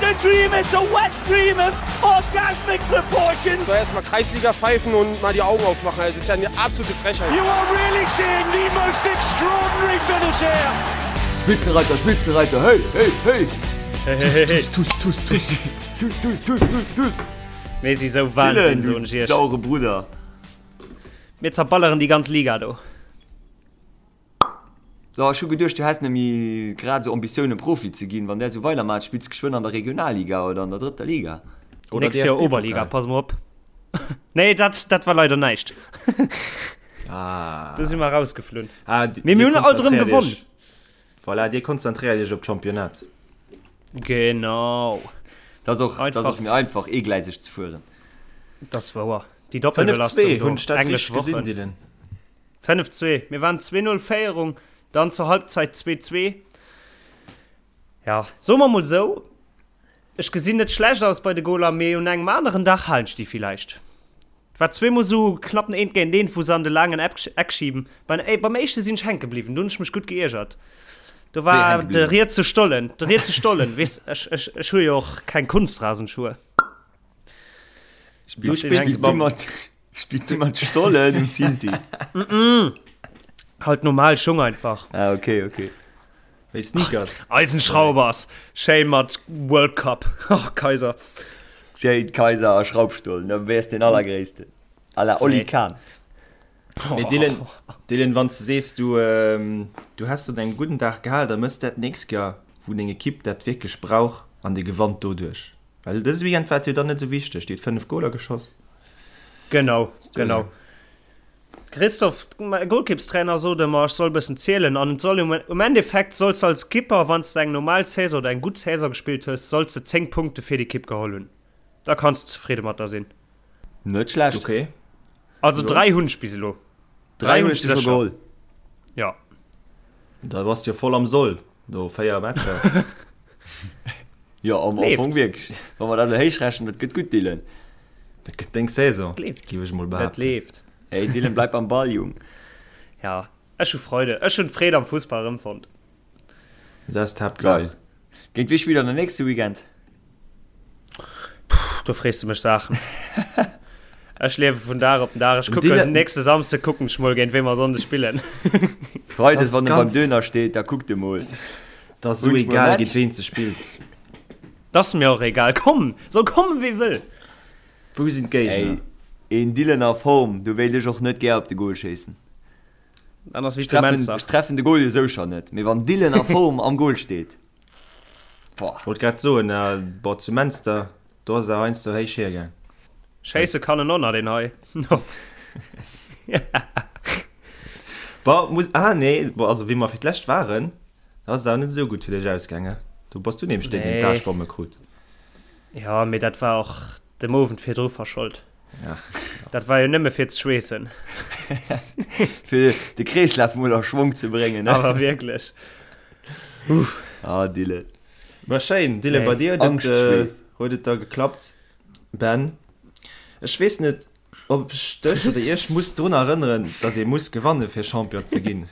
a dream, it's a wet dream of orgasmic proportions. So erstmal Kreisliga pfeifen und mal die Augen aufmachen. Das ist ja eine absolute Frechheit. You are really seeing the most extraordinary finish here. Spitzenreiter, Spitzenreiter, hey, hey, hey! Hey, hey, hey, hey. Tuss, tuss, tuss, tuss, tuss, tuss, tuss, tuss! Mir si sou Wahnsinn, Dylan, du soen ech iech. saure Brudder! Mir zerballeren déi ganz Liga do. So, ech hu geduecht, du häss net méi grad esou Ambitiounen, Profi ze ginn. Wann där esou weidermaacht, spills de geschwënn an der Regionalliga oder an der drëtter Liga. Oder Nächst Joer Oberliga, pass mol op. Nee, dat, dat war leider näischt. Ah. Do si mer rausgeflunn. Ah, di- Mee mir dir hunn alt erëm konzentréiert gewonnen. iech- Voilà, dir konzentréiert iech op d'Championnat. Genau. Dat ass och, dat ass Einfach. och méi einfach, eegleiseg ze fueren. Dat ass wouer. Déi 5-2, Doppelbelastung do, hunn ech dat englesch richteg gesinn, Wochen. Dylan? 5, 2. Mir waren 2, 0 Féierung, dann zur Halbzeit 2, 2. Ja, soe mer mol sou, ech gesinn net schlecht aus bei de Goler, mee un engem aneren Dag halen ech déi villäicht. Et war zweemol sou knapp en Eent géint Eent, wou se an de laangen Eck schiben. Beim, beim éischte sinn ech hänke bliwwen, do hunn ech mech gutt geiergert. Do Wéi war hänke de bliwwen? rietse Stollen, de rietse Stollen, weess, ech, ech, ech hu jo och keng Kunstrasenschue. Du Spills, spills spills du mam mat, spills du mat Stollen um Sinti? Halt normal Schung einfach. Ah, okay, okay. Wéi Sneakers. Eisenschraubers, schéin mat World Cup. Oh, Kaiser. Schéin Kaiser a Schraubstollen, da wäers den allergréissten. À la Oli Nee. Kahn. Mee Dylan, Dylan, wann s de sees, du, du häss dat engem gudden Dag gehal, da mëss dat d'nächst Joer, wou deng Ekipp dat wierklech brauch an dir gewannt doduerch. Well dëse Weekend war et jo dann net esou wichteg, Dir hutt 5 Goler geschoss. Genau, genau. Christoph, mäi Golkippstrainer sot ëmmer, ech soll e bëssen zielen an et soll um, um Endeffekt solls de als Kipper, wann s de eng normal Saison oder eng gutt Saison gespillt hues, solls de 10 Punkte fir d'Ekipp geholl hunn. Da kanns de zefridde mat der sinn. Net schlecht. Okay. Also 3 hunn ech bis elo. 3 3 hunn hues ech du scho sécher. geholl. Ja. Da bass de jo voll am Soll no 4 Matcher. Jo, am Leeft. Fong wierklech. Wa mer dat elo héich rechnen, dat gëtt gutt, Dylan. Dat gëtt deng Saison, Dat leeft. géif ech mol Dat behaapten. leeft. Hey Dylan, bleib am Ball, Jung. Ja, ech hu Freude. Ech hunn d'Freed am Fussball erëmfonnt. Dat ass d'Haaptsaach. Geil. Géint wie spillt der den nächste Weekend? Puh, do frees du mech Saachen. Ech liewe vun Dag op den Dag. Ech kucken Dylan- nächste Samsde kucken ech mol géint wéi mer Sonnde spillen. Freides, Das wann e beim ganz- Döner steet, da kuckt e mol. Dat ass sou Wunsch mol egal, Match. géint ween s de spills. Dat ass mir och egal. Komm, soll kommen wie wëll. Wou sinn d'Géigner? Ey, een Dylan a Form, do wéilt ech och net gär op de Goal schéissen. Dann ass wéi Ech zu treffen, Menzer. ech treffen de Goal jo sou schon net, mee wann Dylan a Form am Goal steet, boah. Wollt grad soen, boah, zu Menster, do ass et awer heiansdo héich hiergaang. Schéisse kann en och nach, deen hei. Boah, muss, ah nee, boah, also wéi mer fir d'lescht waren, da ass et awer net esou gutt fir dech ausgaange. Do bass du nämlech deen, deen Nee. d'Aarschbomme krut. Ja, mee dat war och dem Owend virdru verschold. Ach, Dat war jo nëmme fir ze schweessen. Fir de Kreeslaf mol a Schwong ze bréngen, ne? Awer wierklech. Ah, Dylan. Ma schéin, Dylan, Nee. bei dir huet et, äh, Angschtschweess. huet et da geklappt. Ben, ech weess net, ob ech dech oder iech muss drun erënneren, dass ee muss gewanne fir Champion ze ginn.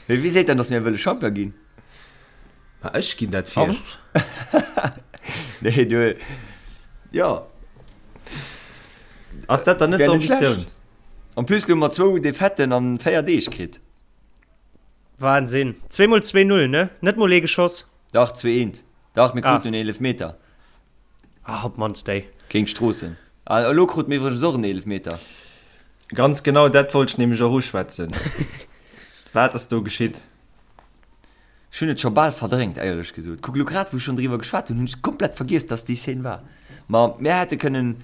Mee wie seet dann, dass mir wëlle Champion ginn? Ma ech ginn dat vir. Nee, du. Jo. Ass dat dann net Wär net d'Ambitioun? schlecht. En plus hu mer zwou Defaiten an 4 Deeg kritt. Wahnsinn. Zweemol 2-0, ne? Net mol ee geschoss. Dach, 2-1. Dach, mir Ah. kruten en Eelefmeter. Ah, op d'mannst déi. Géint Stroossen. Ah, elo krute mir iwwregens och en Eelefmeter. Ganz genau dat wollt ech nämlech och uschwätzen. Wat ass do geschitt? Ech hunn et scho bal verdrängt, éierlech gesot. Kuck, elo grad wou ech schonn driwwer geschwat hunn, hunn ech komplett vergiess, dass déi Szene war. Ma mir hätte kënnen,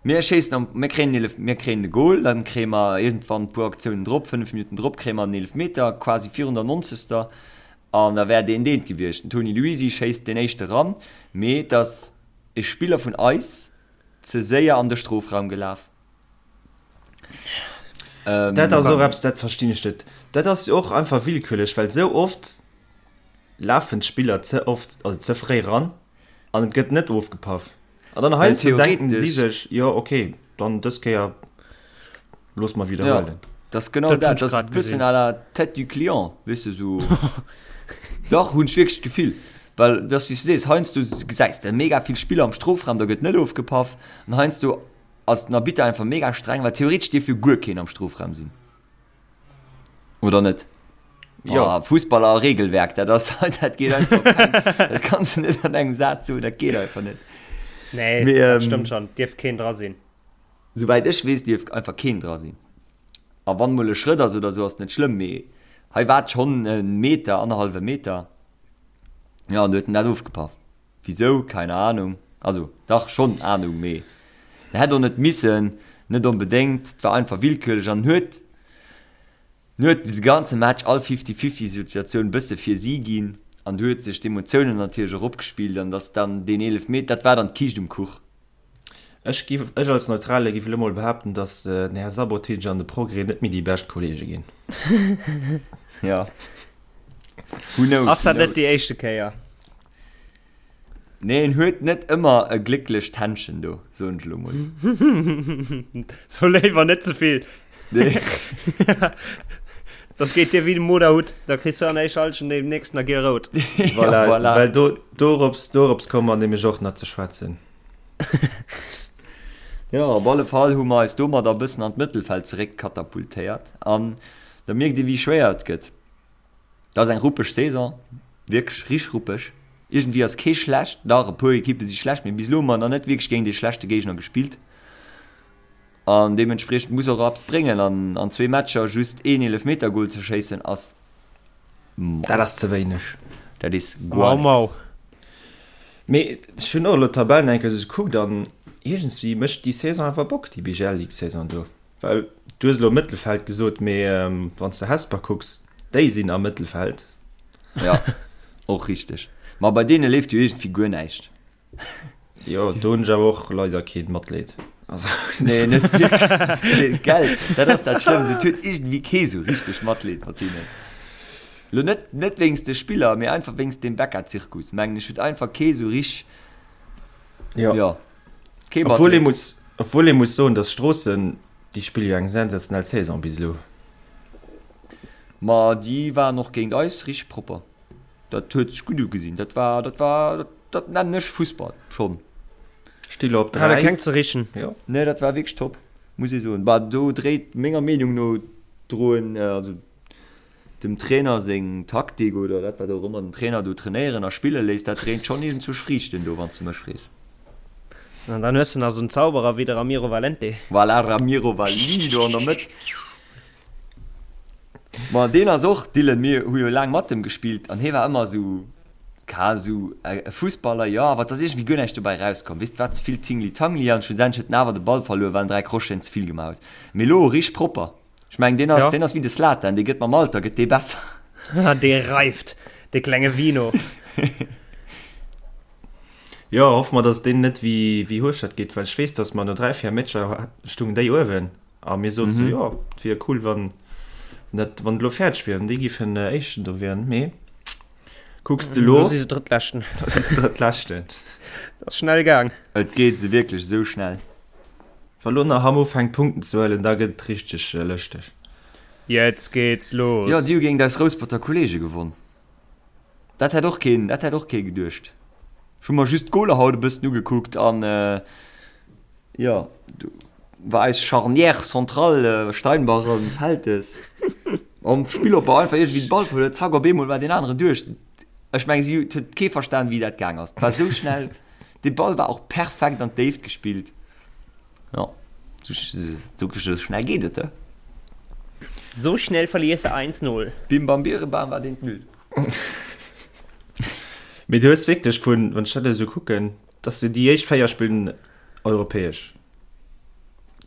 mir schéissen am, mir kréien en Eelef, mir kréien de Goal, dann kréie mer iergendwann e puer Aktiounen drop, 5 Minutten drop kréie mer en Eelefmeter, quasi virun der nonzegster, an da wär deen deen gewiescht. Den Toni Luisi schéisst deen éischte ran, mee et ass e Spiller vun eis ze séier an de Strofraum gelaf. Ähm, dat ass och eppes, dat verstinn ech net. Dat ass jo och einfach willkürlech, well sou oft lafen d'Spiller ze oft, also ze fréi ran an et gëtt net ofgepaff. An dann heiansdo denken si sech, jo okay, dann dës Kéier loosse mer widderhuelen. Ja, dat ass genau dat, dat ass e bëssen à la tête du client, weess de, sou. Dach, hunn ech wierklech d'Gefill. Well et ass wéi s du sees, heiansdo gesäis de mega vill Spiller am Strofraum, da gëtt net ofgepaff an heiansdo ass den Arbitter einfach mega streng, well theoretesch dierf jo guer keen am Strofraum sinn. Oder net? Jo. Oh, Fussball a Regelwerk, dat ass, dat geet einfach keng, dat kanns du net an engem Saz soen, dat geet einfach net. Nee, Mee, dat ähm, stëmmt schon, dierf keen dra sinn. Souwäit ech weess, dierf einfach keen dra sinn. A wann mol e Schrëtt ass oder sou, ass net schlëmm, mee hei war et schonn e Meter, annerhallwe Meter. Jo, an du huet en dat ofgepaff. Wisou? Keine Ahnung. Also, dach, schonn Ahnung, mee en hätt och net missen, net onbedéngt. Et war einfach willkürlech an en huet, en huet de ganze Match all Fifty-Fifty-Situatioun e bësse fir si ginn an du huet sech d'Emotiounen natierlech och opgespillt an dass dann deen Eelefmeter, dat war dann d'Kiischt um Kuch. Ech giff, ech als Neutrale giff elo mol behaapten, dass den Här Sabotic an de Progrès net méi déi bescht Kollege ginn. Ja. Who knows, Ass dat net déi éischte Kéier? Nee, en huet net ëmmer e glécklecht Händchen do, soen ech elo mol. So léiwer net ze vill. Nee. Das geet dir wéi dem Moderhutt, da kriss du an éischer Halschent deem nächsten a giel rout. Voilà, ja, voilà. Well do, dorops, dorops komme mer nämlech och nach ze schwätzen. Jo, op alle Fall hu mer eis domadder e bëssen an d'Mëttelfeld zeréck katapultéiert an da mierkt ee wéi schwéier et gëtt. Dat ass eng ruppeg Saison, wierklech richteg ruppeg. Iergendwéi ass kee schlecht, dach e puer Ekippe si schlecht, mee bis elo hu mer nach net wierklech géint ee schlechte Géigner gespillt an deementspriechend muss och eppes bréngen an an zwee Matcher just een Eelefmetergol ze schéissen ass mau. Dat ass ze wéineg. Dat is guer Mau, mau. nix. Mee ech hunn och elo d'Tabell nach eng Kéier esou gekuckt an iergendswéi mécht déi Saison awer Bock, déi BGL Ligue Saison do. Well du hues elo Mëttelfeld gesot, mee wann s de Hesper kucks, déi sinn am Mëttelfeld. Ja, och richteg. Ma bei deene leeft jo iergendwéi guer näischt. Jo, do hunn ech awer och leider kee Matleed. Also. Nee, net wierklech. Nee, gell, dat ass dat Schlëmmst. Et huet iergendwéi kee sou richteg Matleed mat hinnen. Lo net, net wéinst de Spiller, mee einfach wéinst deem Becca-Zirkus, mengen ech, huet einfach kee sou rich. Jo. Jo, kee Obwuel ee Matleed. muss, obwuel ee muss soen, datt Stroossen, déi spille jo eng sensationell Saison bis elo. Ma déi waren och géint eis richteg propper. Dat huet sech gutt ugesinn. Dat war, dat war, dat nennen ech Fussball schonn. Sti lo op 3. Hat e keng ze richen. Jo. Nee, dat war wierklech top, muss ee soen. Bah, do dréit menger Meenung no droen, also dem Trainer seng Taktik oder dat wat och ëmmer den Trainer do trainéieren a spille léisst, dat dréint schonn iergendzwousch Friichten do, wann s de mech frees. An dann hues de nach esou en Zauberer wéi de Ramiro Valente. Voilà, Ramiro Valini do an der Mëtt. Ma deen ass och, Dylan, mir hu jo laang mat em gespillt an hie war ëmmer esou, ka esou e Fussballer, jo, awer et ass iergendwéi guer näischt dobäi erauskomm, weess, et war ze vill Tingli-Tangli an schlussendlech huet en awer de Ball verluer, well en 3 Crocheten ze vill gemaach huet. Mee elo richteg propper. Ech mengen, deen ass, deen ass wéi de Zlatan, dee gëtt mam Alter gëtt dee besser. Dee reift, dee klenge Vino. Jo, hoffe mer, dass deen net wéi, wéi Hueschtert geet, well ech weess, dass mer no 3, 4 Matcher stungen déi uewen. A mir soten sou, jo, et wier cool, wann dat, wann et elo fäerdeg wier an déi giffen Éischten do wieren. Mee kucks de elo. Do si se Drëttleschten. Da si se Drëttleschten. Dat ass schnell gaang. Et geet se wierklech esou schnell. Wa lo nach Hamm ufänkt Punkten ze huelen, da gëtt et richteg lëschteg. Jetzt geht's los! Jo, déi hu géint eis Rousperter Kollege gewonn. Dat hätt och keen, dat hätt och kee geduecht. Ech hu mer just d'Goler haut e bëssen ugekuckt an jo, do war eis Charnière centrale Steinbach an Feltes am Spillopbau einfach iergendwéi de Ball verluer, zack op eemol war deen aneren duerch. Ech meng si huet kee verstan wéi dat gaang ass. Et war esou schnell, de Ball war och perfekt an d'Déift gespillt. Jo, sou schnell geet et, he? So schnell verliers de 1, 0. Bim bam birebam war deen d'Null. Mee du hues wierklech vun, wann ech dat esou kucken, dass du déi éischt 4 spillen europäesch.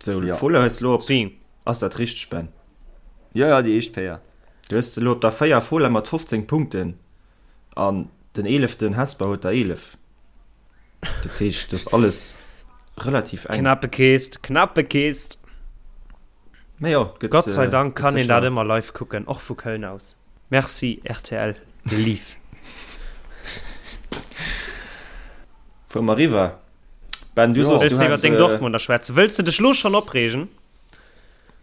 Sou, Ja. Fola hues elo op, Si. ass dat richteg Ben? Jo, jo, déi éischt 4. Du hues elo op der 4 Fola mat 15 Punkten an den eeleften Hesper huet der 11. Dat heescht, dat ass alles relativ eng. Knappe Kist, knappe Kist. Mee jo, gëtt, Gott sei Dank gëtt kann een dat sécher. ëmmer live kucken, och vu Köln aus. Merci rtl Live. Fuere mer eriwwer. Ben, du Jo. soss, Wëlls du de iwwer has. deng Dortmunder schwätzen? Wëlls de dech lo schonn opreegen?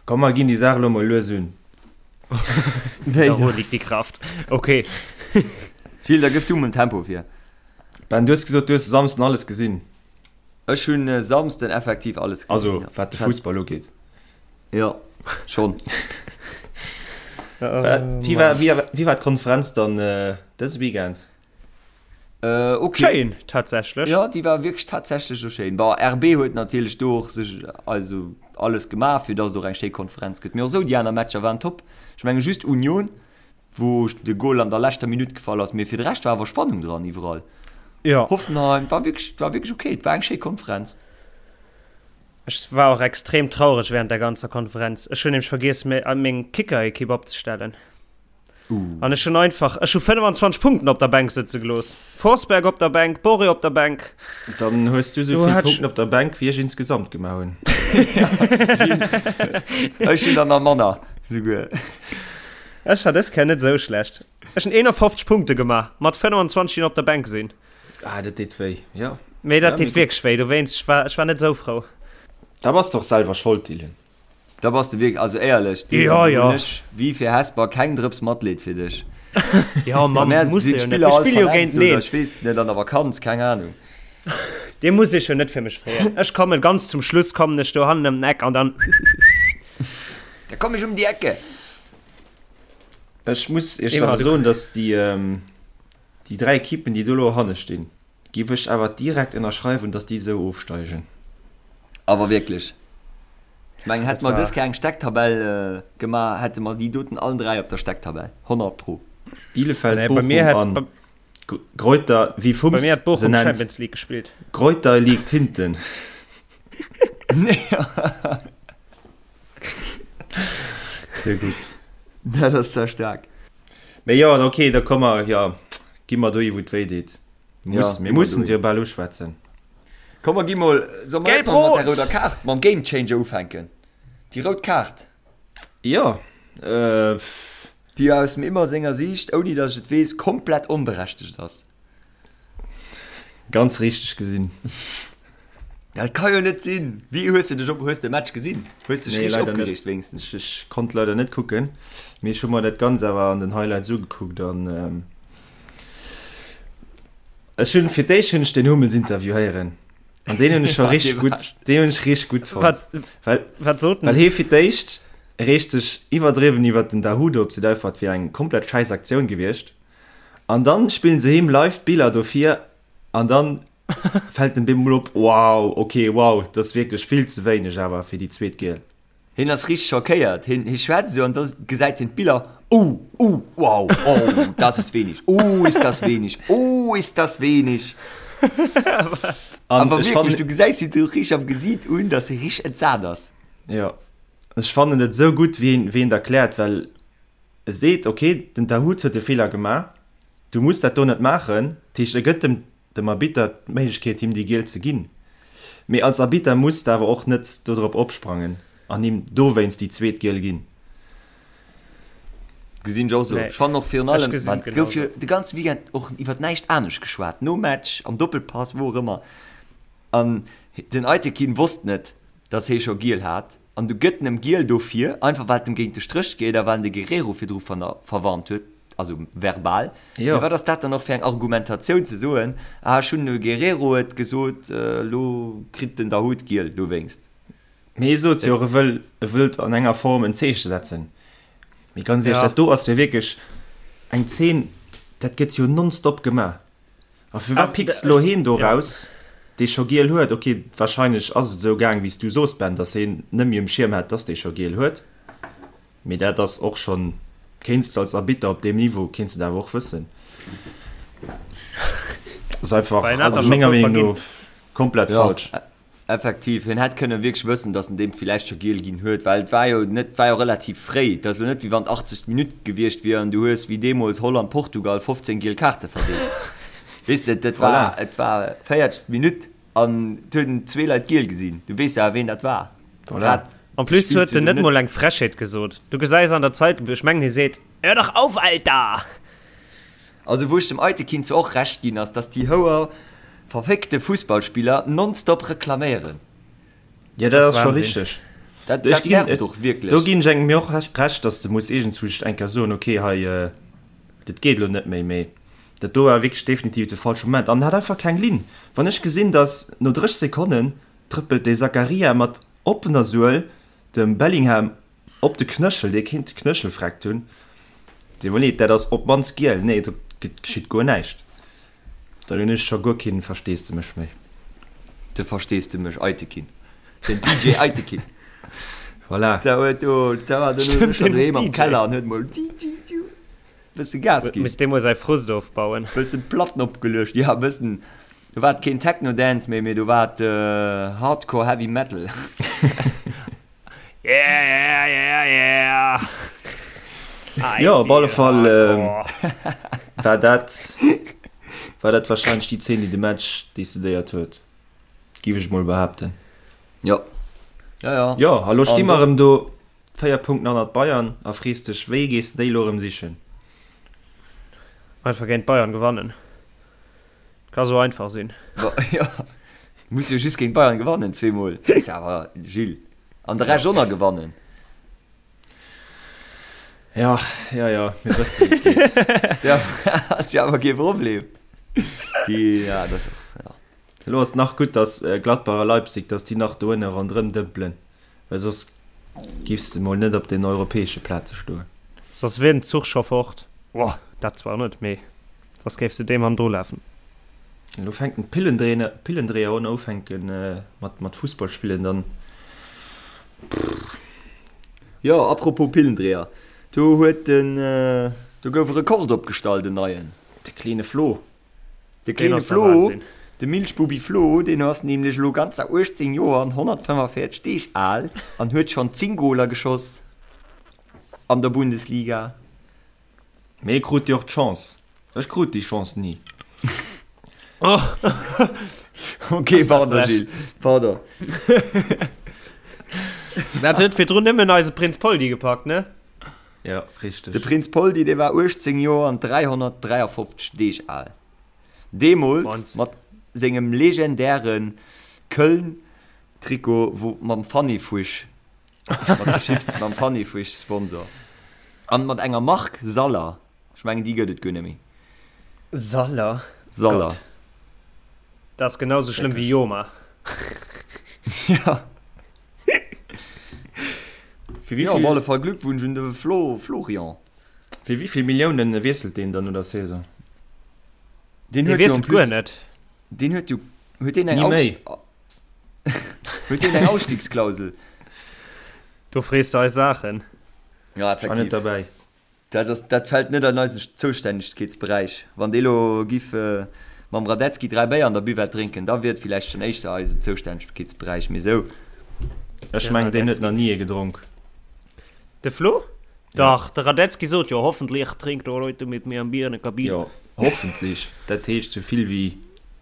Komm, mer ginn déi Saach elo mol lues un. Wéi Daru da? liegt die Kraft. Okay. Gilles, da gëff du mol den Tempo vir. Ben, du hues gesot, du hues e Samsden alles gesinn. Ech hunn e Samsden effektiv alles gesinn. Also, wat de Fussball ugeet. Jo, schonn. Wéi war, wéi war d'Konferenz dann dëse Weekend? Ok. Schéin, tatsächlech. Jo, déi war wierklech tatsächlech och schéin. Bon, RB huet natierlech do och sech also alles gemaach, fir datt et och eng schéi Konferenz gëtt. Mee och esou, déi aner Matcher waren top. Ech menge just Union wou de Goal an der leschter Minutt gefall ass, mee fir de Rescht war awer Spannung dran iwwerall. Jo. Hoffenheim war wierklech, war wierklech ok, et war eng schéi Konferenz. Ech war och extrem traureg während der ganzer Konferenz. Ech hunn nämlech vergiess meng Kicker-Ekipp opzestellen. Uh. An ech hunn einfach, ech hu 25 Punkten op der Bänk sëtze gelooss. Forsberg op der Bänk, Borré op der Bänk. Dann hues du sou vill Punkten op der Bänk wéi ech insgesamt gemaach hunn. Ech hunn der nach manner souguer. Ech war dës Kéier net esou schlecht. Ech hunn 51 Punkte gemaach, mat 25 déi op der Bänk sinn. Ah, dat deet wéi, jo. Mee dat deet wierklech wéi, dowéinst, ech war, ech war net esou frou. Da bass de och selwer Schold, Dylan. Da bass de wierklech, also éierlech, Dylan, Jo, do jo. hunn ech, wéi fir Hesper, keng Drëps Matleed fir dech. Jo, Bei Mann, mär muss sinn e jo net. d'Spiller Mir all spille jo verletzt géinteneen. oder ech weess net, an der Vakanz, keng Ahnung. Dir musst iech jo net fir mech freeën. Ech kommen ganz zum Schluss, kommen ech do hannen ëm den Eck an dann. Da komm ech um déi Ecke. Ech muss iech Emma, awer du. soen, dass déi, déi 3 Ekippen, déi do elo hanne stinn, géif ech awer direkt ënnerschreiwen, dass déi esou ofsteigen. Awer wierklech. Ech mengen, hätte Dat mer dës war. Kéier eng Stecktabell gemaach, hätte mer déi doten allen 3 op der Stecktabell. 100 pro. Bielefeld, Nee, bei mir Bochum hätt, an bei, Greuther, wéi bei Fums mir hätt se Bochum nennt, Champions League gespillt. Greuther liegt hinten. Sehr gutt. Dat ass zwar staark. Mee jo, ok, da komme mer, jo, gi mer dohi wou et wéi deet. Ja, Muss, mir gi mer mussen dohi. se jo bal uschwätzen. Komm mer gi mol, soll mer net mol mat der Gelb-Rot! rouder Kaart, mam Game Changer ufänken? Déi rout Kaart. Jo, äh. Déi aus dem Immer senger Siicht, ouni datt ech et weess, komplett onberechtegt ass. Ganz richteg gesinn. Dat ka jo net sinn! Wéi hues de dech op, hues de Match gesinn? Hues dech Nee, richteg leider net. opgereegt wéinstens? Ech, ech konnt leider net kucken, mee ech hu mer dat Ganzt awer an den Highlights ugekuckt an ähm, ech hunn fir d'éischt hunn ech den Hummels Interview héieren an deen hunn ech scho richteg gutt, deen hunn ech richteg gutt fonnt. Wat, Well, wat sot well en? hee fir d'éischt reegt sech iwwerdriwwen iwwert den Dahoud op, seet einfach et wier eng komplett schäiss Aktioun gewiescht an dann spillen se him live d'Biller dofir an dann fält dem bemol op, wow, ok, wow, dat ass wierklech vill ze wéineg awer fir déi zweet Giel. Hien ass richteg schockéiert, hien hie schwätzt esou an da gesäit hien d'Biller, oh, oh, wow, oh, das ist wenig, oh, ist das wenig, oh, ist das wenig. An Awer ech wierklech, fannen, du gesäis him do richteg am Gesiit un, dass hie richteg entsat ass. jo, ech fannen et esou gutt, wéi en, wéi en et erkläert, well e seet, ok, den Dahoud huet e Feeler gemaach, du muss dat do net maachen, dat heescht, e gëtt dem dem Arbitter d'Méiglechkeet him déi Giel ze ginn, mee als Arbitter muss de awer och net dodrop opsprangen an him dowéinst déi zweet Giel ginn. Gesinn ech och esou. Nee, Ech fannen och virun ech allem, gesinn well et et gouf jo genauso. de ganze Weekend och iwwert näischt anescht geschwat, nom Match, am Doppelpass, wou och ëmmer. An den Aytekin wosst net, dass hee scho Giel hat. An du gëtt en em Giel dofir, einfach well et em géint de Stréch geet a well en de Guerrero virdru verwarnt huet, also verbal. Jo. Mee wat ass dat dann och fir eng Argumentatioun ze soen, ah ech hunn dem Guerrero et gesot, elo kritt den Dahoud Giel dowéinst. Mee hie sot jo och, e wëll, e wëllt an enger Form en Zeeche setzen. Mee ganz éierlech, Ja. dat do ass jo wierklech eng Zeen, dat gëtt jo nonstop gemaach. A firwat picks de lo heen do raus, dee scho giel huet? Ok, wahrscheinlech ass et esou gaang wéi s du soos, Ben, dass heen net méi um Schierm hat, dass dee scho giel huet. Mee dat ass och schonn, kéints de als Arbitter op deem Niveau, kéints de dat awer och wëssen. Ass einfach, also menger Meenung no, komplett falsch. Effektiv, hien hätt kënnen wierklech wëssen, datt en deem villäicht scho giel ginn huet, well et war jo net, war jo relativ fréi. Et ass elo net, wéi wann d'achtzegst Minutt gewiescht wier an du hues, wéi deemools Holland-Portugal, 15 giel Kaarte verdeelt. Weess de, dat war, Voilà. et war véiertegst Minutt an et hunn zwee Leit giel gesinn. Du weess jo awer, ween dat war. Voilà. Grad En plus spills huet du en net net. mol eng Frechheet gesot. Du gesäis an der Zeitung, ech mengen hie seet, Hör doch auf, Alter! Also wou ech dem Aytekin zwar och Recht ginn ass, dass déi houer verféckte Fussballspiller nonstop reklaméieren. Jo, dat Das ass scho Wahnsinn. richteg. Dat, Ech dat ginn, nervt och wierklech. do ginn ech engem jo och Recht, dass de muss iergendzwousch eng Kéier soen, okay, hei, dat geet elo net méi. Mee. Dat do war wierklech definitiv de falsche Moment an en hat einfach keng Linn. Wann ech gesinn, dass no 30 Sekonnen trëppelt dee Zakaria mat oppener Suel dem Bellingham op de Knëchel, dee kéint de Knëchel freckt hunn, deet mer leed, dat ass op d'mannst giel, nee do geschitt guer näischt. Dann hunn ech scho guer keen Versteesdemech méi. De Versteesdemech Aytekin, den DJ Aytekin. Voilà. Da huet do, da war den Stimmt, schon deen ass doheem am DJ. Keller an huet mol DJ bësse Gas ginn. Misst dee mol säi Frust ofbauen. Bëssen Platten opgeluecht, ja bëssen. Do war et keen Techno Dance méi, mee do war et Hardcore Heavy Metal. Yeah, yeah, yeah, yeah. I Jo, op alle feel Fall hardcore. war dat war dat wahrscheinlech déi Zeen, déi de Match decidéiert huet, giff ech mol behaapten. Jo, jo, jo. Jo, a lo sti An mer do. erëm do, 4 Punkten hannert Bayern a frees dech, wéi gees de déi elo erëm sichen? Einfach géint Bayern gewannen. Ka sou einfach sinn. Jo, muss jo just géint Bayern gewannen, zweemol. Ass jo awer, Gilles. An de Rescht och nach gewannen. Ja, ja, ja, mir wëssen, wéi et geet. Ass jo awer kee Problem. Déi, ja, dat ass och, ja. Elo ass et nach gutt, datt Gladbach a Leipzig, datt déi nach do ënne ronderëm dëmpelen, well soss giffs de mol net op den europäesche Plaze stoen. Soss wier den Zuch scho fort. Boah, dat zwar net, mee soss géif se deem hannendru lafen. Elo fänken d'Pillendréiner, Pillendréier un ufänken mat mat Fussball spillen, dann pff. Jo, apropos Pillendréier, do huet den, do gouf e Rekord opgestallt, en neien. De kleene Flo. De kleene Flo, de Milchbubi Flo, deen ass nämlech elo ganzer 18 Joer an 145 Deeg al an huet schonn 10 Goler geschoss an der Bundesliga. Mee e krut jo och d'Chance. Ech krut déi Chance ni. Ok, pardon Gilles, pardon. Dat huet virdrun nëmmen eise Prinz Poldi gepackt, ne? Ja, richteg. De Prinz Poldi, dee war 18 Joer an 353 Deeg al. Deemools mat sengem legendäre Köln-Trikot, wou mam Fanny-Fuisch, mat de Chips, mam Fanny-Fuisch-Sponsor. An mat enger Mark Saller. Ech mengen, déi gëtt et guer net méi. Saller? Saller. Gott. Dat ass genau sou schlëmm wéi Joma. Ja. Fir wéi Jo, op vill, alle Fall Glückwunsch un de Flo, Florian. fir wéi vill Milliounen wiesselt deen dann no der Saison? Deen Dee huet jo en wiesselt guer plus, net. deen huet jo, huet deen eng Ni méi. Aus, huet deen eng Ausstiegsklausel? Do frees de eis Saachen. Ja, War net effektiv. derbäi. Dat ass, dat fält net an eisen Zoustännegkeetsberäich. Wann dee lo giff mam Radetzky 3 Béier an der Buvette drénken, da wier et villäicht schonn éischter eisen Zoustännegkeetsberäich, mee sou. Ech mengen, deen huet nach ni ee gedronk. De Flo? Dach, de Radetzky sot jo, Hoffentlich trinkt er heute mit mir ein Bier in der Kabine. Jo, hoffentlich. Dat heescht sou vill wéi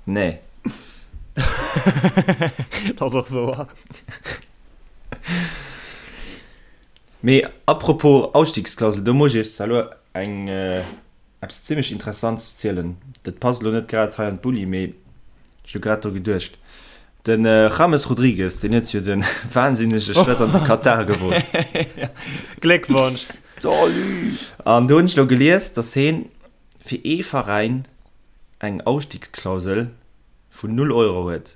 nee. Dat ass och wouer. Mee apropos Ausstiegsklausel, do muss ech iech zwar elo eng eppes zimmlech Interessantes zielen. Dat passt elo net grad hei an d'Bulli, mee ech hu grad dru geduecht. De James Rodriguez, deen huet jo de wahnsinnege Schrëtt an de Katar gewot. Gléckwonsch! Salut! An do hunn ech elo gelies, datt heen fir ee Veräin eng Ausstiegsklausel vun null Euro huet.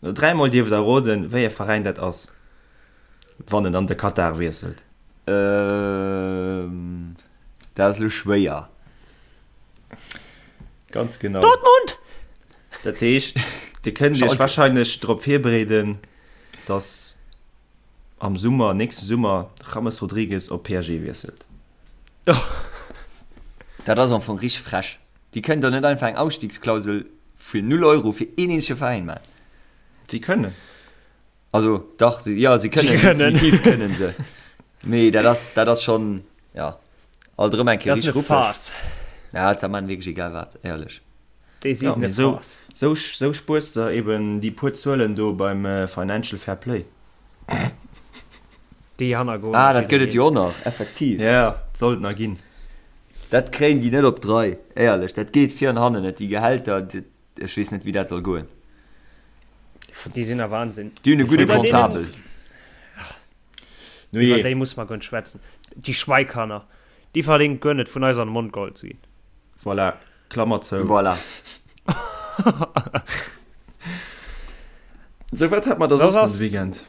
No dräimol dierft der roden, wéi e Veräin dat ass, wann en an de Katar wiesselt. Ehm, dat ass elo schwéier. Ganz genau. Dortmund! Dat heescht, Dir kënnt Iech warscheinlech drop virbereeden, dass am Summer, nächste Summer, de James Rodriguez op PSG wiesselt. Dat ass am Fong richteg frech. Déi kënnen doch net einfach eng Ausstiegsklausel fir 0 Euro fir een eenzege Veräin maachen. Si kënnen. Also dach, si, jo, si kënnen, Si kënnen. definitiv kënnen se. Mee dat ass, dat ass schonn, ja, alt erëm eng Kéier Dat ass richteg eine ruppeg. Farce. Ja, ze man wierklech egal wat, éierlech. Déi si Ja, sinn mee e sou, Farce. sou, sou spuers de eben déi puer Zuelen do beim Financial Fair Play. Déi hannergoen. Ah, dat gëtt et jo och nach, effektiv. Ja, sollt nach ginn. Dat kréien déi net op d'Rei, éierlech. Dat geet vir an hannen net, déi Gehälter, ech weess net, wéi dat soll goen. Déi sinn a Wahnsinn. Déi hunn e gudde Iwwer deenen- Comptabel. No Iwwer jee. déi muss mer guer net schwätzen. Déi Schweikanner, déi verdéngt guer net vun eis an de Mond geholl ze ginn. Voilà. Klammer zou. Voilà. Sou, wat hat mer da Soss soss nach ass- de Weekend?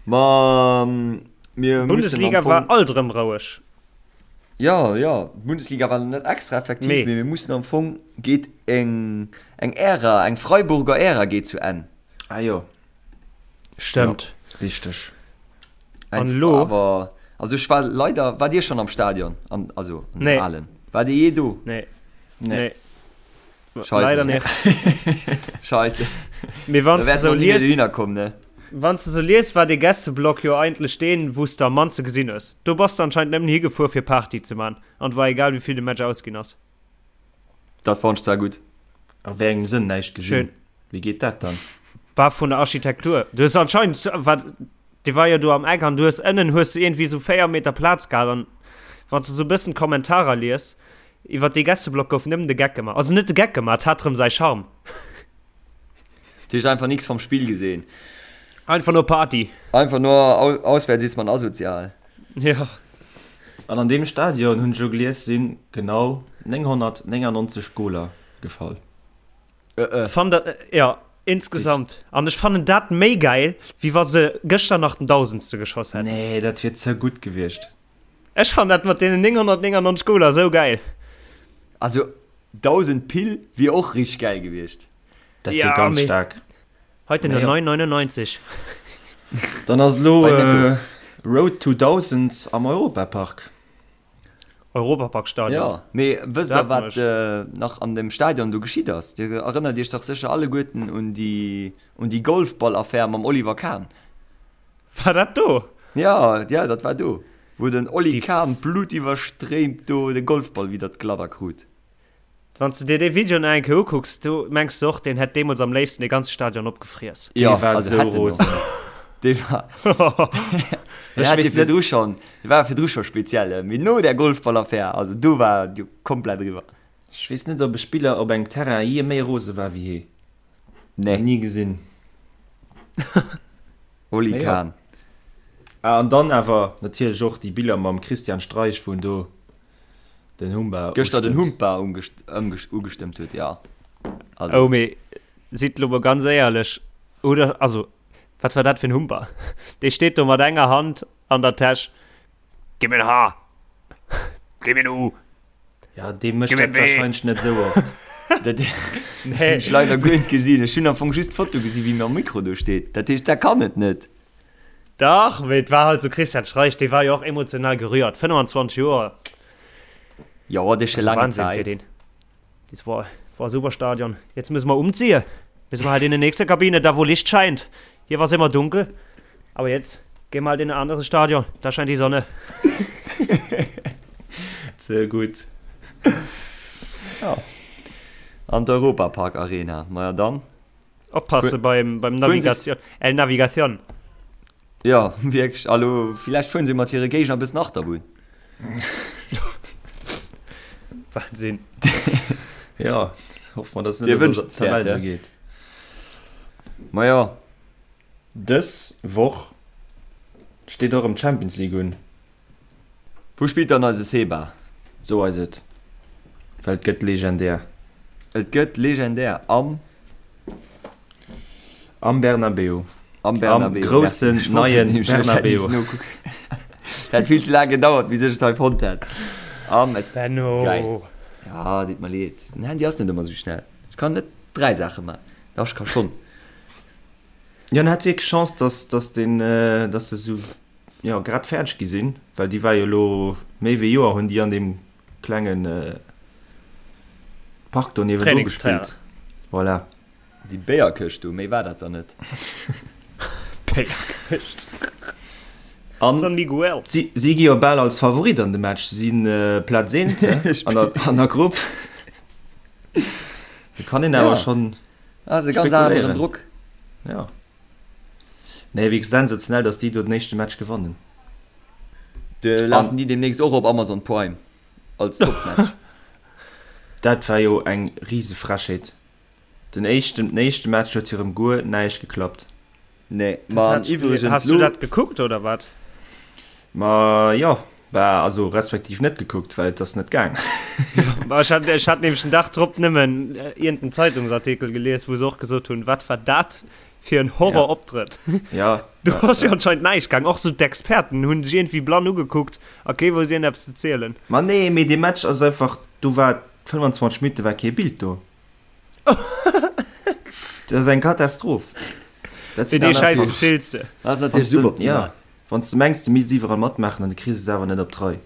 Ma mir müssen am Bundesliga Fong war alt erëm roueg. Jo, jo, d'Bundesliga war net extra effektiv, Nee. mee mir mussen am Fong geet eng eng Ära, eng Freiburger Ära geet zu Enn. Ah jo. Stëmmt. Ja, richteg. An elo? Awer, also ech war leider, war Dir schonn am Stadion? An, also an Nee. dem alen? War Dir jee do? Nee. Nee. Nee. Scheisse. Leider net. Scheisse. Mee wann Da s wäert de mer sou ni méi lies, dohinner kommen, ne? wann s de sou lies, war dee Gästeblock jo eigentlech deen, wou s de am mannste gesinn hues. Do bass de anscheinend nëmmen higefuer fir Party ze man an et war egal wéi vill de Match ausginn ass. Dat fonnt ech zwar gutt. A wéi engem Sënn näischt gesinn? Schön. Wéi geet dat dann? War vun der Architektur. Du hues anscheinend, war, dee war jo do am Eck an du hues ënnen hues de iergendwéi sou 4 Meter Plaz gehat an wann s de sou e bëssen d'Kommentarer lies iwwer dee Gästeblock gouf nëmmen de Geck gemaach. Also net de Geck gemaach, et hat rëm säi Charme. Du hues einfach nix vom Spiel gesehen. Einfach nur Party. Einfach nur auswärts ist man asozial. Ja. An an deem Stadion, hunn ech elo gelies, si genau 999 Goler gefall. Fann dat, ja, insgesamt. An ech fannen dat méi gäil, wéi wa se gëschter nach den Dausendste geschoss hätten. Nee, dat wier ze gutt gewiescht. Ech fannen dat mat deenen 999 Goler esou gäil. Also 1000 Pill wier och richteg gäil gewiescht. Dat wier ganz staark. Heute nur 9,99. Dann ass elo Road to 1000 am Europapark. Europaparkstadion. Jo, mee wësst der wat nach an dem Stadion do geschitt ass? Dir erënnert iech dach sécher alleguerten un déi un déi Golfball-Affär mam Oliver Kahn. War dat do? Jo, jo, dat war do, wou den Oli Kahn blutiwwerstréimt do de Golfball widder d'Gladder krut. Wann s de dir dee Video nach eng Kéier ukucks, do mengs de och, deen hätt deemools am léifsten dee ganze Stadion opgefriess. Jo, Dee war also sou hätt en och. rosen. Dee war, dee Ech hat jo weess net. virdru schonn, dee war virdru scho speziell, mee no där Golfballaffär, also do war et jo komplett eriwwer. Ech weess net, ob e Spiller op engem Terrain jee méi rose war wéi hee. Nee. Ni gesinn. Oli Mee jo. Kahn. Ah, an dann awer natierlech och déi Biller mam Christian Streich, wou en do Den Humba Gëschter den Humpa ugestëmmt huet, jo. Also. Oh, mee sidd lo mol ganz éierlech, oder? Also, wat war dat fir en Humpa? Dee steet do mat enger Hand an der Täsch, Gib mir en H! Gib mir en U! Ja, dee mécht Gib mir dat en B! wahrscheinlech net esou oft. Dat Nee. hunn ech leider guer net gesinn. Ech hunn am Fong just d'Foto gesinn, wéi mam Mikro do steet. Dat heescht, dat kann et net. Dach, mee et war halt sou, Christian Streich, dee war jo och emotional gerührt, 25 Joer. Jo, dat ass scho Also laang Wahnsinn fir Zäit. deen. Das war, war super Stadion. Jetzt müssen wir umziehen. Müssen wir halt in die nächste Kabine, da wo Licht scheint. Hier war es immer dunkel. Aber jetzt gehen wir halt in ein anderes Stadion. Da scheint die Sonne. Ze gutt. Ja. An d'Europapark Arena. Maja dann. Oppasse beim, beim Navigation. El Navigation. Ja, wierklech. Alo, villäicht fueren se mat hire Géigner e bëssen Achterbunn. Wahnsinn. Ja, hoffe mer, dass et Dir net wënscht an der Tabell ja. sou geet. Ma jo. Dës Woch steet och erëm d'Champions League un. Wou spillt dann eise Seba? Sou eis et, well et gëtt legendär. Et gëtt legendär am. Am Bernabeu. Am Bernabeu. Am groussen neien Bernabeu. Dat vill ze laang gedauert, bis ech et hei fonnt hätt. Am Benno. Geil. Ja, deet mer leed. Den Handy ass net ëmmer sou schnell. Ech kann net 3 Saache man. Dach, ech ka schonn. Jo, en hat wierklech Chance, dass, dass den, dass se sou jo grad fäerdeg gi sinn, well déi war jo elo méi wéi Joer hunn déi an deem klengen Park do niewendru gespillt. Voilà. Déi Béierkëscht do, méi war dat der net. Béierkëscht. An San Miguel. Si, si gi jo bal als Favorit an de Match, si sinn Plaz eent an der, an der Grupp. Se kann een awer Ja. schonn Ah, se ganz aneren Drock. Ja. Nee, wierklech sensationell, dass déi do den éischte Match gewannen. De lafen déi demnächst och op Amazon Prime als Topmatch. Dat war jo eng rise Frechheet. Den éischten, den éischte Match huet hirem guer näischt geklappt. Nee, ma an iwwregens Has du dat gekuckt oder wat? Ma jo. Bah, also respektiv net gekuckt, well et ass net gaang. Bah, ech hat, ech hat nämlech den Dag drop nëmmen iergenden Zeitungsartikel gelies, wou se och gesot hunn, wat war dat fir en Horroroptrëtt. Ja. Do ass jo anscheinend näischt gaang. Och sou d'Experten hunn sech iergendwéi blann ugekuckt a kee wousst iergendeppes ze zielen. Ma nee, mee dee Match ass einfach, do war 25 Minutte war kee Bild do. Dat ass eng Katastroph. Dat Fir dee Schäiss beziils de. Dat ass natierlech super optimal. Ja, wann s de mengs, du misst iwwerall matmaachen an du kriss es awer net op d'Rei.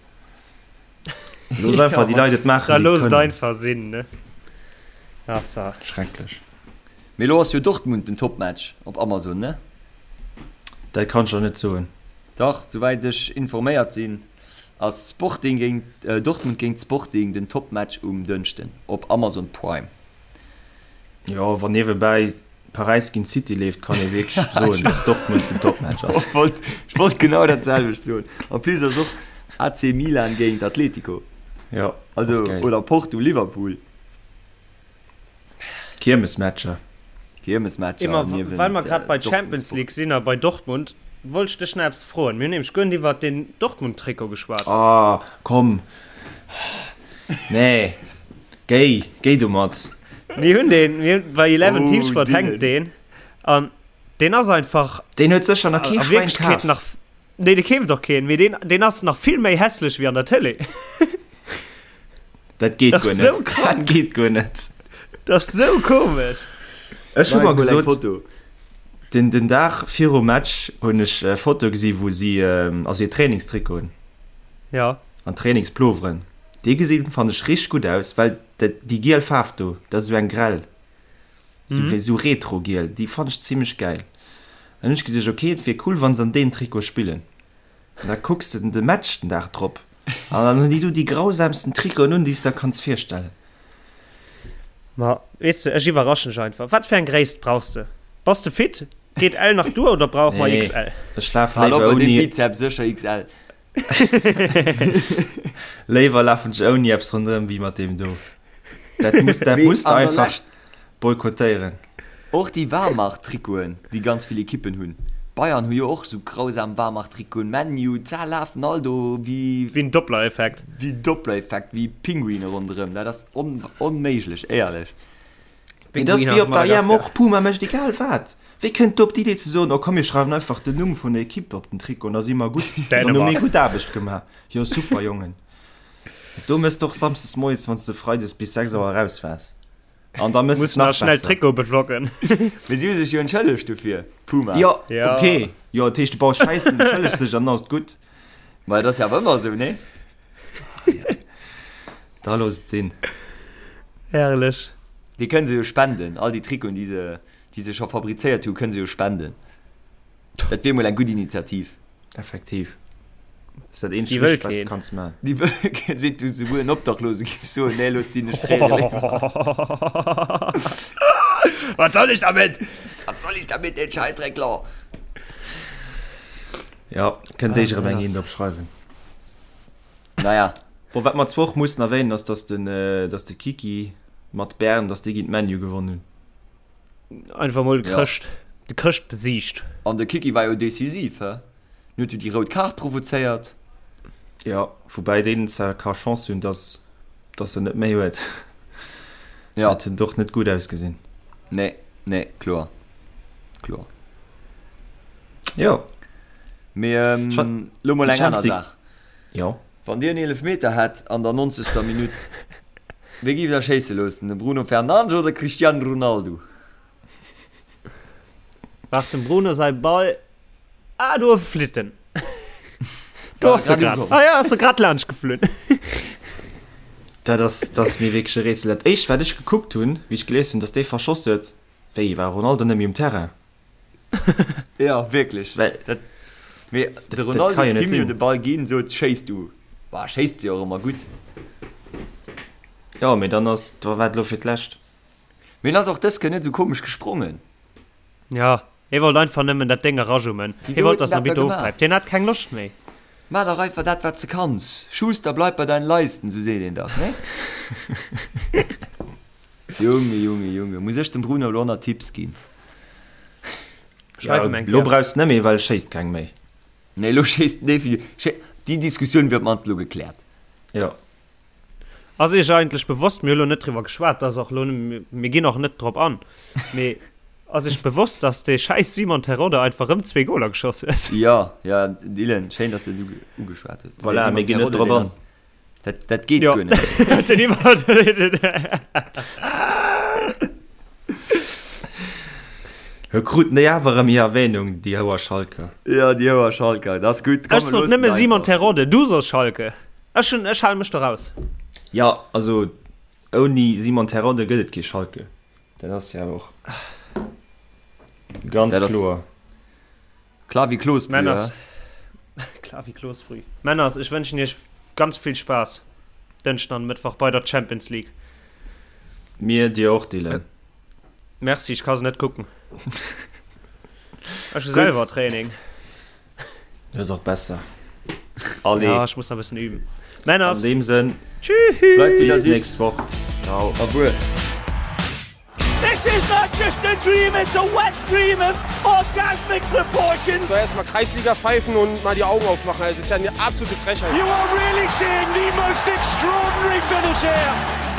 Looss einfach déi Leit et maachen, Da déi et looss et kënnen. einfach sinn, ne? Ach sa. Schrecklech. Mee elo ass jo Dortmund den Topmatch op Amazon, ne? Dat kann ech der net soen. Dach, souwäit ech informéiert sinn, ass Sporting géint Dortmund géint Sporting den Topmatch um Dënschden op Amazon Prime. Jo, wann niewebäi Paräis géint City leeft, kann ee wierklech soen, dass Dortmund den Topmatch ass. Ech wollt, ech wollt genau dat selwecht soen. En plus ass och AC Milan géint Atletico. Jo, Also, och gäil. oder Porto Liverpool. Kiermesmatcher. Kiermesmatcher Emma, niewent well mer grad bei Dortmund Champions Sport. League sinn a bei Dortmund, wollt ech dech nach eppes froen. Mir hunn nämlech guer net iwwert den Dortmund-Trikot geschwat. Ah, komm. Nee, géi, géi domat. Mir hunn deen, mir hunn, bei Eleven Oh, Teamsport Dylan. hänkt deen an deen ass einfach Deen huet sécher nach kee a Schwäin Wierklechkeet kaf. nach, nee, dee keeft och keen, mee deen, deen ass nach vill méi hässlech wéi an der Tëlee. Dat geet Dat guer ass sou net. krank. Dat geet guer net. Dat ass sou komesch. Ech hu Mach mer mol eng gesot, Foto. den, den Dag virum Match hunn ech e Foto gesi wou si, also hir Trainingstrikoten Ja. an Trainingsploveren, déi gesinn fannt ech richteg gutt aus, well dat, déi giel Faarf do, dat ass esou eng grell, esou wéi esou retro-giel, déi fannt ech zimmlech gäil. An hunn ech geduecht, ok, et wier cool wann se an deem Trikot spillen. An da kucks de de Match den Dag drop an dann hunn déi do déi grausamsten Trikoten un, déi s de der kanns virstellen. Ma weess de, ech iwwerraschen dech einfach. Wat fir eng Gréisst brauchs de? Bass de fit? Geet L nach duer oder brauche mer Nee, XL? ech lafe Hal op léiwer bei deem ouni. Bizeps, sécher XL. Léiwer lafen ech ouni eppes ronderëm wéi mat deem do. Dat muss, dat Mee muss de an der einfach Lescht boykottéieren. Och déi Warmach-Trikoten, déi ganz vill Ekippen hunn. Bayern hu jo och sou grausam Warmach-Trikoten. Man U, d'Sa lafen all do wéi. Wéi en Doppler-Effekt. Wéi Doppler-Effekt, wéi Pinguine ronderëm. Dat ass onméiglech, éierlech. Mee dat ass wéi op der EM och, Puma mécht egal wat. Wéi kënnt do op d'Idee ze soen, oh komm mir schreiwen einfach den Numm vun der Ekipp op den Trikot an da si mer gutt, dann hu mir gutt Aarbecht gemaach. Jo super Jongen. Do mëss de och samsdes moies, wann s de freides bis 6 Auer eraus waars. An da mëss Muss et nach nach schnell besser. Trikot bedrocken. Mee si hu sech jo entschëllegt dofir, Puma. Jo, Ja. ok. Jo, dat heescht, du baus Schäissen, entschëllegs dech an dann ass et gutt. Ma dat ass jo awer ëmmer esou, nee? Da looss et sinn. Herrlech. Déi kënne se jo spenden, all déi Trikoten, déi se, déi se scho fabrizéiert hu, kënne se jo spenden. Dat wier mol eng gutt Initiativ. Effektiv. Ass dat eenzegt Déi wëll Richtegt, wat s de keen. kanns maachen. Déi wëll keen, seet du souguer en Obdachlose géif soen, nee, looss déi, ech freeë léiwer. Was soll ich damit? Was soll ich damit, den Scheißdreckler? Ja, kënnt Ah, éischer erëm eng dat eent ass- opschreiwen. Naja. Bon, wat mer zwar och mussen erwähnen, ass, dass den, dass de Kiki mat Bern, dass déi géint ManU gewonnen hunn. Einfach mol de Ja. Chrëscht, de Chrëscht besiegt. An de Kiki war jo decisiv, hä? En huet jo déi rout Kaart provozéiert. Ja, woubäi deen zwar ka Chance hunn, dass, dass en net méi huet. Ja. Dat huet och net gutt ausgesinn. Nee, nee, kloer. Kloer. Jo. Mee ähm, lo mol eng aner Saach. Jo. Wann Dir en Eelefmeter hätt an der 90. Minutt, wee giff Der schéisse loossen, de Bruno Fernandes oder de Cristiano Ronaldo? Waart dem Bruno säi Ball. Ah, do flitt en. Do ass e grad. Ah ja, ass e grad laanscht geflunn. Dat ass, dat ass mir wierklech e Rätsel. Dat éischt, wat ech gekuckt hunn, wéi ech gelies hunn, datt dee verschoss huet, wéi, war Ronaldo net méi um Terrain? Ja, wierklech. Well, Dat, mee de dat Ronaldo kann jo huet net him jo sinn. de Ball ginn, sot, Schéiss du. Bah, schéisst jo och ëmmer gutt. Jo, mee dann ass, da war et elo fir d'lescht. Mee en ass och dës Kéier net esou komesch gesprongen. Ja, hie wollt einfach nëmmen dat Déng erajummen. Hie Wisou wollt, huet en dass den dat da Arbitter gemaach? ofpäift. Hien hat keng Loscht méi. Maach dach einfach dat, wat s de kanns. Schuster, bleib bei deinen Leisten, sou seet een dach, nee? Junge, Junge, Junge, muss ech dem Bruno elo nach Tipps ginn? Schreif Ja, em eng elo Kéier. brauchs net méi, well e schéisst keng méi. Nee, elo schéisst en definitiv. Déi Diskussioun wier op d'mannst elo gekläert. Jo. Ass Iech eigentlech bewosst, mir hu lo net driwwer geschwat, dat ass och lo, mir ginn och net drop an, mee ass Iech bewosst, dass dee schäiss Simon Terodde einfach rëm zwee Goler geschoss huet? Jo, jo, Dylan, schéin, dass de et ugeschwat hues. Voilà, mir ginn net drop an. Dat, dat geet guer net. Den iwwer. Hö kruten déi awer erëm hir Erwähnung, déi Houer Schalker. Jo, déi Houer Schalker, dat ass gutt. Ech sot nëmme Simon Terodde, du sos Schalke. Ech hunn, ech hale mech do raus. Jo, also ouni Simon Terodde gëtt et kee Schalke. Dat ass jo awer och ganz kloer. Klar wéi Klosbrüh, Männers, klar wéi Klosbrüh. Männers, ech wënschen iech ganz vill Spaass Dënschden an Mëttwoch bei der Champions League. Mir dir och, Dylan. Merci, ech ka se net kucken. Ech hu selwer Training. Dat ass och besser. Allez. Ja, ech muss nach e bëssen üben. Männers. An deem Sënn. Tschüss. Bleift wéi der Bis sidd. nächst Woch. Ciao. A wuel. This is not just a dream, it's a wet dream of orgasmic proportions. So erstmal Kreisliga pfeifen und mal die Augen aufmachen. Das ist ja eine absolute Frechheit. You are really seeing the most extraordinary finish here.